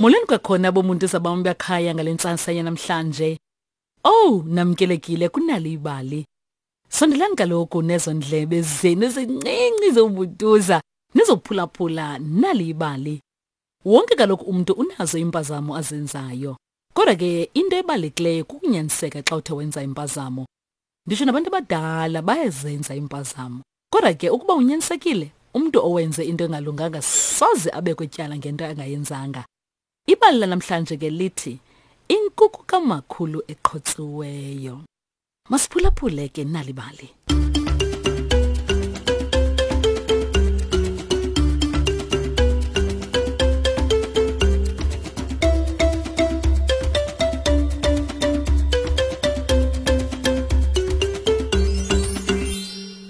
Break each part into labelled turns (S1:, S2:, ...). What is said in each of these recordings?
S1: Molweni kwakhona bomuntu zabam bekhaya ngale ntsasa yanamhlanje. Oh, namkelekile kunalo ibali. Sondelani kaloku nezo ndlebe zenu ezincinci zobutuza nizophulaphula nali ibali. Wonke kaloku umntu unazo iimpazamo azenzayo. Kodwa ke into ebalulekileyo kukunyaniseka xa uthe wenza impazamo. Nditsho nabantu abadala bayazenza iimpazamo. Kodwa ke ukuba unyanisekile, umntu owenze into engalunganga soze abekwe tyala ngento angayenzanga. Ibali lanamhlanje ke lithi Inkuku kamakhulu eqhotsiweyo. Masiphulaphule ke nali bali.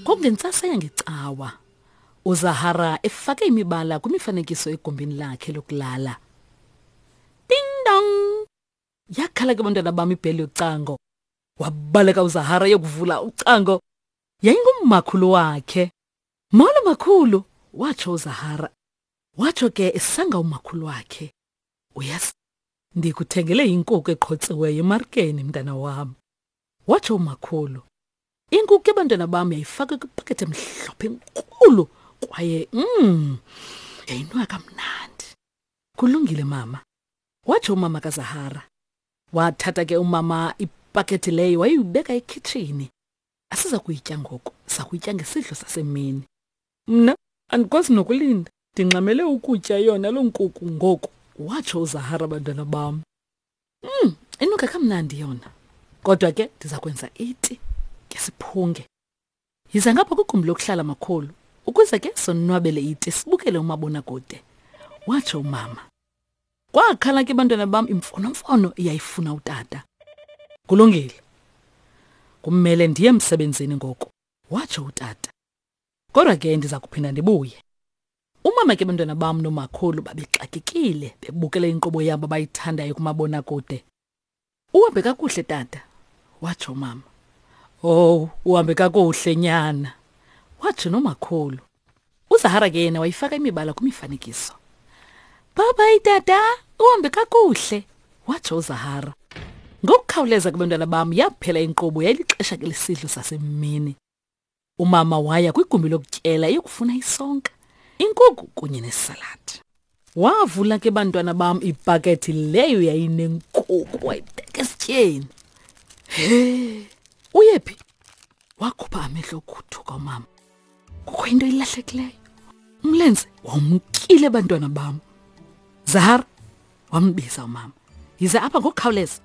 S1: Kwakungentsasa yangecawa, uZahara efake imibala kwimifanekiso egumbini lakhe lokulala. Ding dong! Yakhala ke bantwana bam ibheli yocango. Wabaleka uZahara yokuvula ucango. Yayingummakhulu wakhe. Molo makhulu, watsho uZahara. Watsho ke esanga umakhulu wakhe. Uyazi, ndikuthengele inkukhu eqhotsiweyo emarikeni mntana wam. Watsho umakhulu. Inkukhu yabantwana bam yayifakwe kwipakethe emhlophe enkulu kwaye yayinwa kamnandi. Kulungile mama, watsho umama kaZahara. Wathatha ke umama ipakethe leyo wayibeka ekhitshini. Asiza kuyitya ngoku, sakuyitya ngesidlo sasemini. Mna andikwazi nokulinda, ndingxamele ukutya yona loo nkuku ngoku, watsho uZahara bantwana bam. Inuka kamnandi yona. Kodwa ke ndiza kwenza iti ke siphunge. Yiza ngapha kwigumbi lokuhlala makhulu ukuze ke sonwabele iti sibukele umabonakude, watsho umama. Kwakhala ke bantwana bam imfonomfono iyayifuna utata. Kulungile. Kumele ndiye emsebenzini ngoku, watsho utata. Kodwa ke ndiza kuphinda ndibuye. Umama ke bantwana bam nomakhulu babexakekile bebukele inkqubo yabo abayithandayo kumabonakude. Uhambe kakuhle tata, watsho umama. Oh, uhambe kakuhle nyana, watsho nomakhulu. UZahara ke yena wayifaka imibala kwimifanekiso. Bye bye tata, uhambe kakuhle, watsho uZahara. Ngokukhawuleza ke bantwana bam yaphela inkqubo yayilixesha ke lesidlo sasemini. Umama waya kwigumbi lokutyela eyokufuna isonka, inkukhu kunye nesaladi. Wavula ke bantwana bam ipakethi leyo yayinenkukhu wayibeka esityeni. He, uyephi? Wakhupha amehlo okuthuka umama. Kukho into ilahlekileyo. Umlenze wawumkile bantwana bam. Zahara, wambiza umama. Yize apha ngokukhawuleza.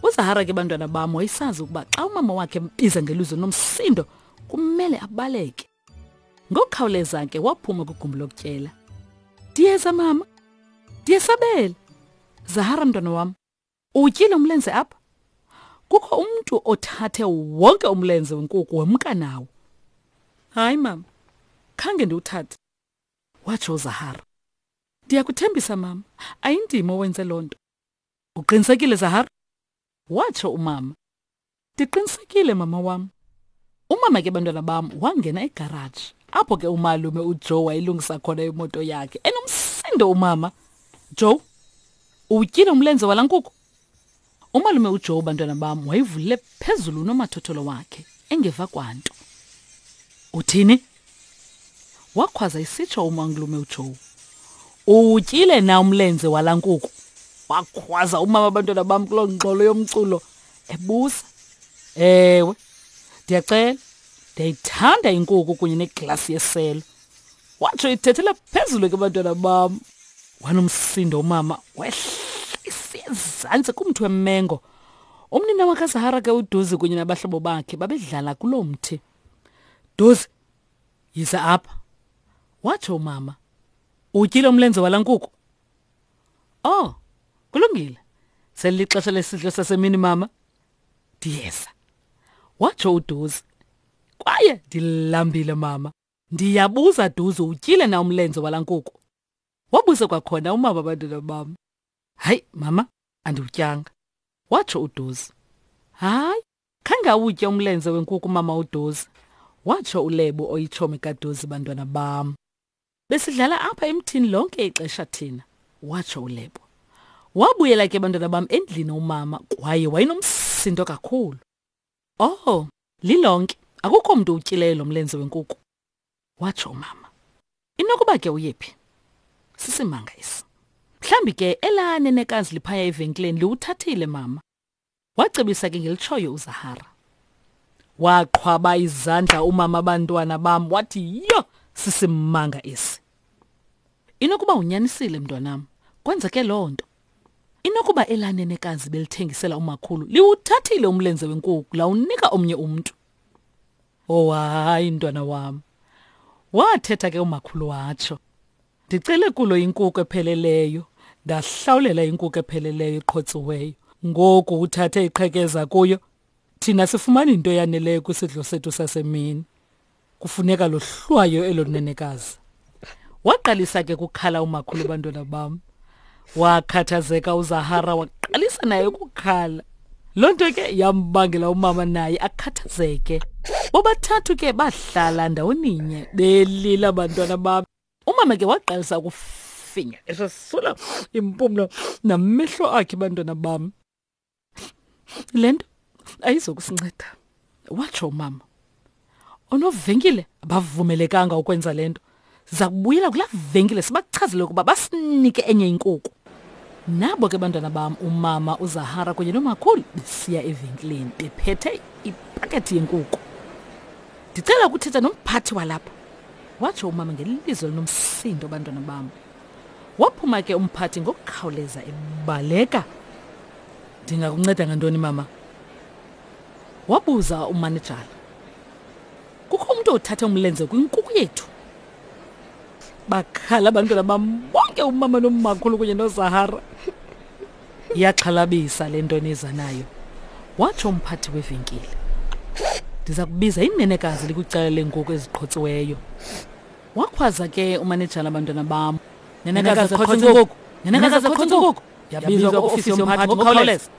S1: UZahara ke bantwana bam wayesazi ukuba xa umama wakhe embiza ngelizwi nomsindo kumele abaleke. Ngokukhawuleza ke waphuma kwigumbi lokutyela. Ndiyeza mama. Ndiyesabela. Zahara mntwana wam, uwutyile umlenze apha? Kukho umntu othathe wonke umlenze wenkuku wemka nawo. Hayi mama, khange ndiwuthathe, watsho uZahara. Ndiyakuthembisa mama, ayindim owenze loo nto. Uqinisekile Zahara? Watsho umama. Ndiqinisekile mama wam. Umama ke bantwana bam wangena egaraji apho ke umalume uJoe wayelungisa khona imoto yakhe. Enomsindo umama. Joe, uwutyile umlenze wala nkukhu? Umalume uJoe bantwana bam wayivulile phezulu unomathotholo wakhe engeva kwanto. Uthini? Wakhwaza isitsho umalume uJoe. Uwutyile na umlenze wala nkukhu? Wakhwaza umama abantwana bam kuloo ngxolo yomculo ebuza. Ewe, ndiyacela, ndiyayithanda inkukhu kunye neglasi yeselo. Watsho ithethela phezulu ke bantwana bam. Wanomsindo umama wehla isiya ezantsi kumthi wemengo. Umnina wakaZahara ke uDuzi kunye nabahlobo bakhe babedlala kuloo mthi. Duzi, yiza apha, watsho umama. Utyile umlenze wala nkukhu? Oh, kulungile. Selixesha lesidlo sasemini mama. Ndiyeza, watsho uDuzi. Kwaye ndilambile mama. Ndiyabuza Duzi, utyile na umlenze wala nkukhu? Wabuza kwakhona umama abantwana bam. Hayi mama, andiwutyanga, watsho uDuzi. Hayi, khange awutye umlenze wenkuku mama uDuzi, watsho uLebo oyitshomi kaDuzi bantwana bam. Besidlala apha emthini lonke ixesha thina, watsho uLebo. Wabuyela ke bantwana bam endlini umama kwaye wayenomsindo kakhulu. Oh, lilonke akukho mntu utyileyo lo mlenze wenkuku, watsho umama. Inokuba ke uyephi? Sisimanga esi. Mhlawumbi ke elaa nenekazi liphaya evenkileni liwuthathile mama. Wacebisa ke ngelitshoyo uZahara. Waqhwaba izandla umama abantwana bam wathi yho sisimanga esi. Inokuba unyanisile mntwanam, kwenzeke loo nto. Inokuba elaa nenekazi belithengisela umakhulu liwuthathile umlenze wenkuku lawunika omnye umntu. Oh hayi mntwana wam. Wathetha ke umakhulu watsho. Ndicele kulo inkuku epheleleyo, ndahlawulela inkuku epheleleyo eqhotsiweyo. Ngoku uthathe iqhekeza kuyo, thina sifumana into eyaneleyo kwisidlo sethu sasemini. Kufuneka lohlwayo elo nenekazi. Waqalisa ke kukhala umakhulu bantwana bam. Wakhathazeka uZahara waqalisa naye ukukhala. Loo nto ke yambangela umama naye akhathazeke. Bobathathu ke bahlala ndawoninye belila bantwana bam. Umama ke waqalisa ukufinya esasula impumlo namehlo akhe bantwana bam. Le nto ayizokusinceda, watsho umama. Onovenkile abavumelekanga ukwenza le nto. Siza kubuyela kulaa venkile sibachazele ukuba basinike enye inkuku. Nabo ke bantwana bam umama uZahara kunye nomakhulu besiya evenkileni bephethe ipakethi yenkuku. Ndicela ukuthetha nomphathi walapha, watsho umama ngelizwi elinomsindo bantwana bam. Waphuma ke umphathi ngokukhawuleza ebaleka. Ndingakunceda ngantoni mama? Wabuza umanejala. Kukho umntu othathe umlenze kwinkuku yethu. Bakhala abantwana bam bonke umama nomakhulu kunye noZahara. Iyaxhalabisa le nto niza nayo, watsho umphathi wevenkile. Ndiza kubiza inenekazi likwicala leenkuku eziqhotsiweyo. Wakhwaza ke umanejala abantwana bam. Nenekazi qhotsa inkukhu. Nenekazi qhotsa inkukhu. Yabizwa kwiofisi yomphathi ngokukhawuleza.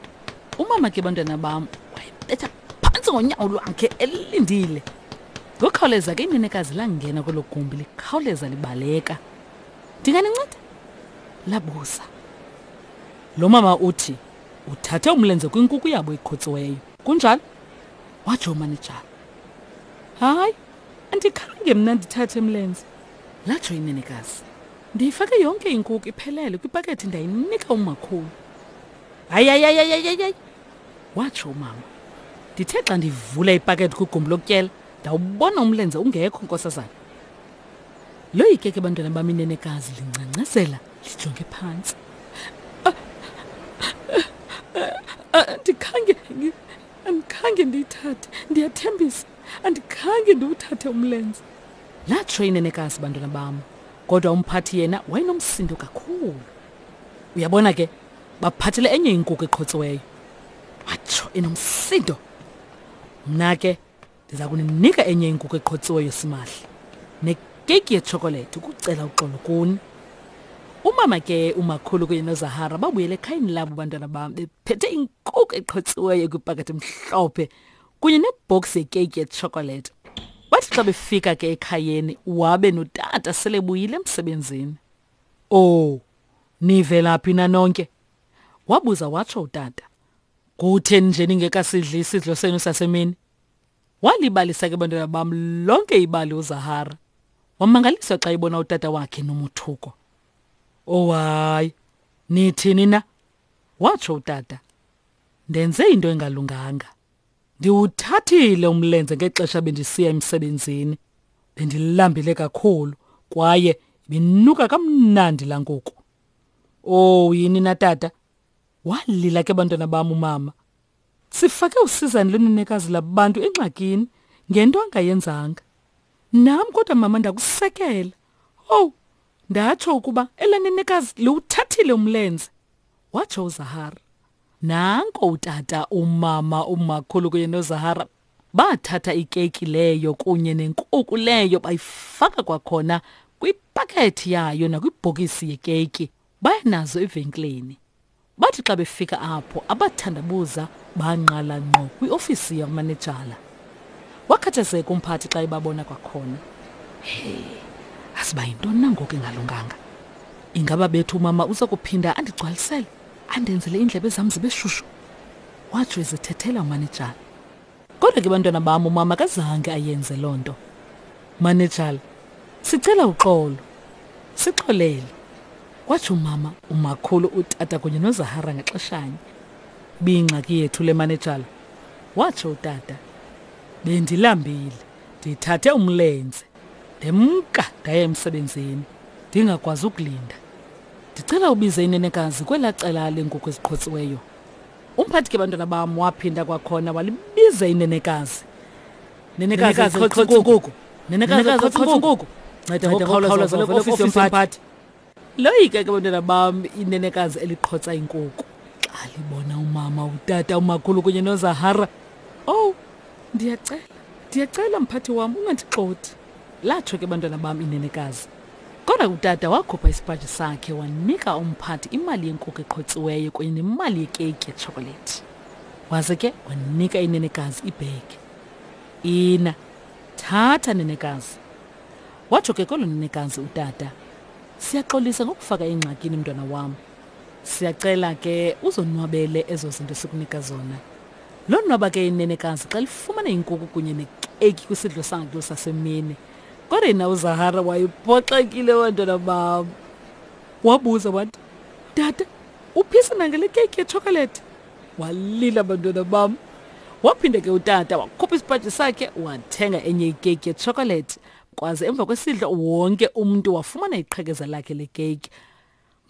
S1: Umama ke bantwana bam wayebetha phantsi ngonyawo lwakhe elindile. Ngokukhawuleza ke inenekazi langena kwelo gumbi likhawuleza libaleka. Ndinganinceda? Labuza. Lo mama uthi uthathe umlenze kwinkuku yabo eqhotsiweyo. Kunjalo? Watsho umanejala. Hayi, andikhange mna ndithathe mlenze, latsho inenekazi. Ndiyifake yonke inkuku iphelele kwipakethi ndayinika umakhulu. Hayi, hayi, hayi, hayi, hayi, hayi, watsho umama. Ndithe xa ndivula ipakethi kwigumbi lokutyela ndawubona umlenze ungekho, nkosazana. Loyike ke bantwana bam inenekazi lingcangcazela lijonge phantsi. Andikhange andikhange ndiyithathe, ndiyathembisa, andikhange ndiwuthathe umlenze. Latsho inenekazi bantwana bam, kodwa umphathi yena wayenomsindo kakhulu. Uyabona ke, baphathele enye inkuku eqhotsiweyo. Watsho enomsindo. Mna ke ndiza kuninika enye inkuku eqhotsiweyo simahla nekeyiki yetshokolethi ukucela uxolo kuni. Umama ke umakhulu kunye noZahara babuyele ekhayeni labo bantwana bam bephethe inkuku eqhotsiweyo kwipakethe emhlophe kunye nebhoksi yekeyiki yetshokolethi. Bathi xa befika ke ekhayeni wabe notata sele buyile emsebenzini. Oh, nivela phi na nonke? Wabuza watsho utata. Kutheni nje ningekasidli isidlo senu sasemini? Walibalisa ke bantwana bam lonke ibali uZahara. Wamangaliswa xa ebona utata wakhe nomothuko. Oh hayi, nithini na? Watsho utata. Ndenze into engalunganga. Ndiwuthathile umlenze ngexesha bendisiya emsebenzini. Bendilambile kakhulu kwaye ibinuka kamnandi laa nkuku. Oh yini na tata? Walila ke bantwana bam umama. Sifake usizani lwenenekazi labantu engxakini ngento angayenzanga. Nam kodwa mama ndakusekela. Owu, ndatsho ukuba elanenekazi liwuthathile umlenze, watsho uZahara. Nanko utata, umama, umakhulu kunye noZahara bathatha ikeyiki leyo kunye nenkuku leyo bayifaka kwakhona kwipakethi yayo nakwibhokisi yekeyiki baya nazo evenkileni. Bathi xa befika apho abathandabuza bangqala ngqo kwiofisi yamanejala. Wakhathazeka umphathi xa ebabona kwakhona. Hey, asiba yintoni na ngoku engalunganga? Ingaba bethu umama uza kuphinda andigcwalisele? Andenzele iindlebe zam zibe shushu, watsho ezithethela umanejala. Kodwa ke bantwana bam umama akazange ayenze loo nto. Manejala, sicela uxolo. Sixolele. Watsho umama, umakhulu, utata kunye noZahara ngaxeshanye. Biyingxaki yethu le manejala, watsho utata. Bendilambile, ndithathe umlenze. Ndemka ndaya emsebenzini, ndingakwazi ukulinda. Ndicela ubize inenekazi kwelaa cala leenkukhu eziqhotsiweyo. Umphathi ke bantwana bam waphinda kwakhona walibiza inenekazi. Nenekazi qhotsa inkukhu. Nenekazi qhotsa inkukhu. Nceda ngokukhawuleza uvele kwiofisi yomphathi. Loyika ke bantwana bam inenekazi eliqhotsa inkukhu. Xa libona umama, utata, umakhulu kunye noZahara. Oh, ndiyacela, ndiyacela mphathi wam ungandixothi. Latsho ke bantwana bam inenekazi. Kodwa utata wakhupha isipaji sakhe wanika umphathi imali yenkukhu eqhotsiweyo kunye nemali yekeyiki yetshokolethi. Waze ke wanika inenekazi ibhegi. Ina, thatha nenekazi. Watsho ke kwelo nenekazi utata. Siyaxolisa ngokufaka engxakini mntwana wam. Siyacela ke uzonwabele ezo zinto sikunika zona. Lonwaba ke inenekazi xa lifumana inkukhu kunye nekeyiki kwisidlo sakhe sasemini. Kodwa yena uZahara wayephoxekile bantwana bam. Wabuza wathi, Tata, uphisa nangale keyiki yetshokolethi? Walila bantwana bam. Waphinde ke utata wakhupha isipaji sakhe wathenga enye ikeyiki yetshokolethi. Kwaze emva kwesidlo wonke umntu wafumana iqhekeza lakhe lekeyiki.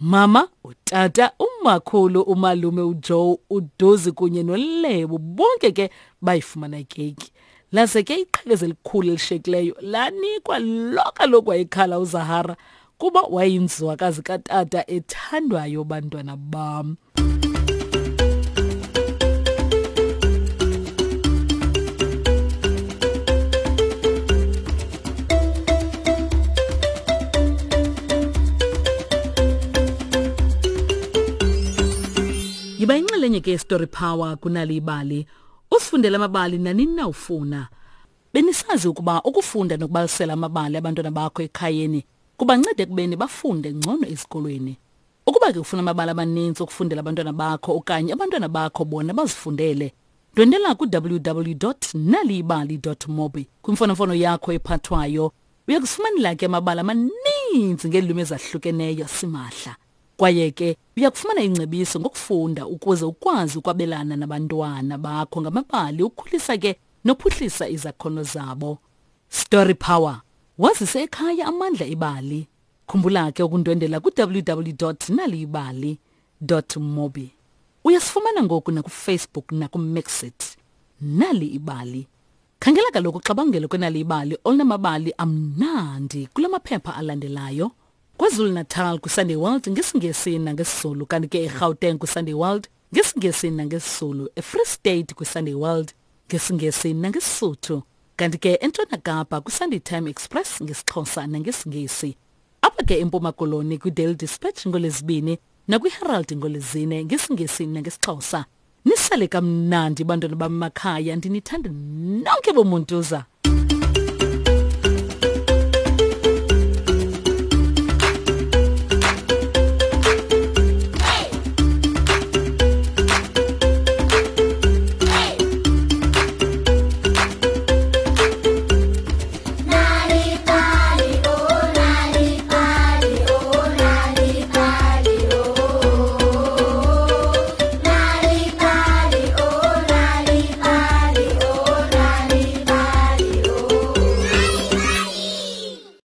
S1: Mama, utata, umakhulu, umalume uJoe, uDozi kunye noLebo bonke ke bayifumana ikeyiki. Laze ke iqhekeza elikhulu elishekileyo lanikwa lo kaloku wayekhala uZahara kuba wayeyinzwakazi katata ethandwayo bantwana bam. Yiba inxalenye ke Story Power kunali ibali. Usifundele amabali nanini na ufuna. Benisazi ukuba ukufunda nokubalisela amabali abantwana bakho ekhayeni kubanceda ekubeni bafunde ngcono esikolweni. Ukuba ke ufuna amabali amaninzi okufundela abantwana bakho okanye abantwana bakho bona bazifundele, ndwendela ku-www.naliyibali.mobi kwimfonomfono yakho ephathwayo. Uya kusifumanela ke amabali amaninzi ngeelwimi ezahlukeneyo simahla. Kwaye ke uya kufumana ingcebiso ngokufunda ukuze ukwazi ukwabelana nabantwana bakho ngamabali ukhulisa ke nophuhlisa izakhono zabo. Story Power. Wazise ekhaya amandla ebali. Khumbula ke ukundwendela ku-www.naliyibali.mobi. Uyasifumana ngoku nakuFacebook nakuMixit. Nali ibali. Khangela kaloku uxabangelo kwenali ibali olunamabali amnandi kula maphepha alandelayo. KwaZulu-Natal kwiSunday World ngesiNgesi nangesiZulu, kanti ke eGauteng kwiSunday World ngesiNgesi nangesiZulu, eFree State kwiSunday World ngesiNgesi nangeSisuthu, kanti ke eNtshona Kapa kwiSunday Time Express ngesiXhosa nangesiNgesi. Apha ke eMpuma Koloni kwiDaily Dispatch ngoLwezibini nakwiHerald ngoLwezine ngesiNgesi nangesiXhosa. Nisale kamnandi bantwana bam makhaya, ndinithanda nonke bomuntuza.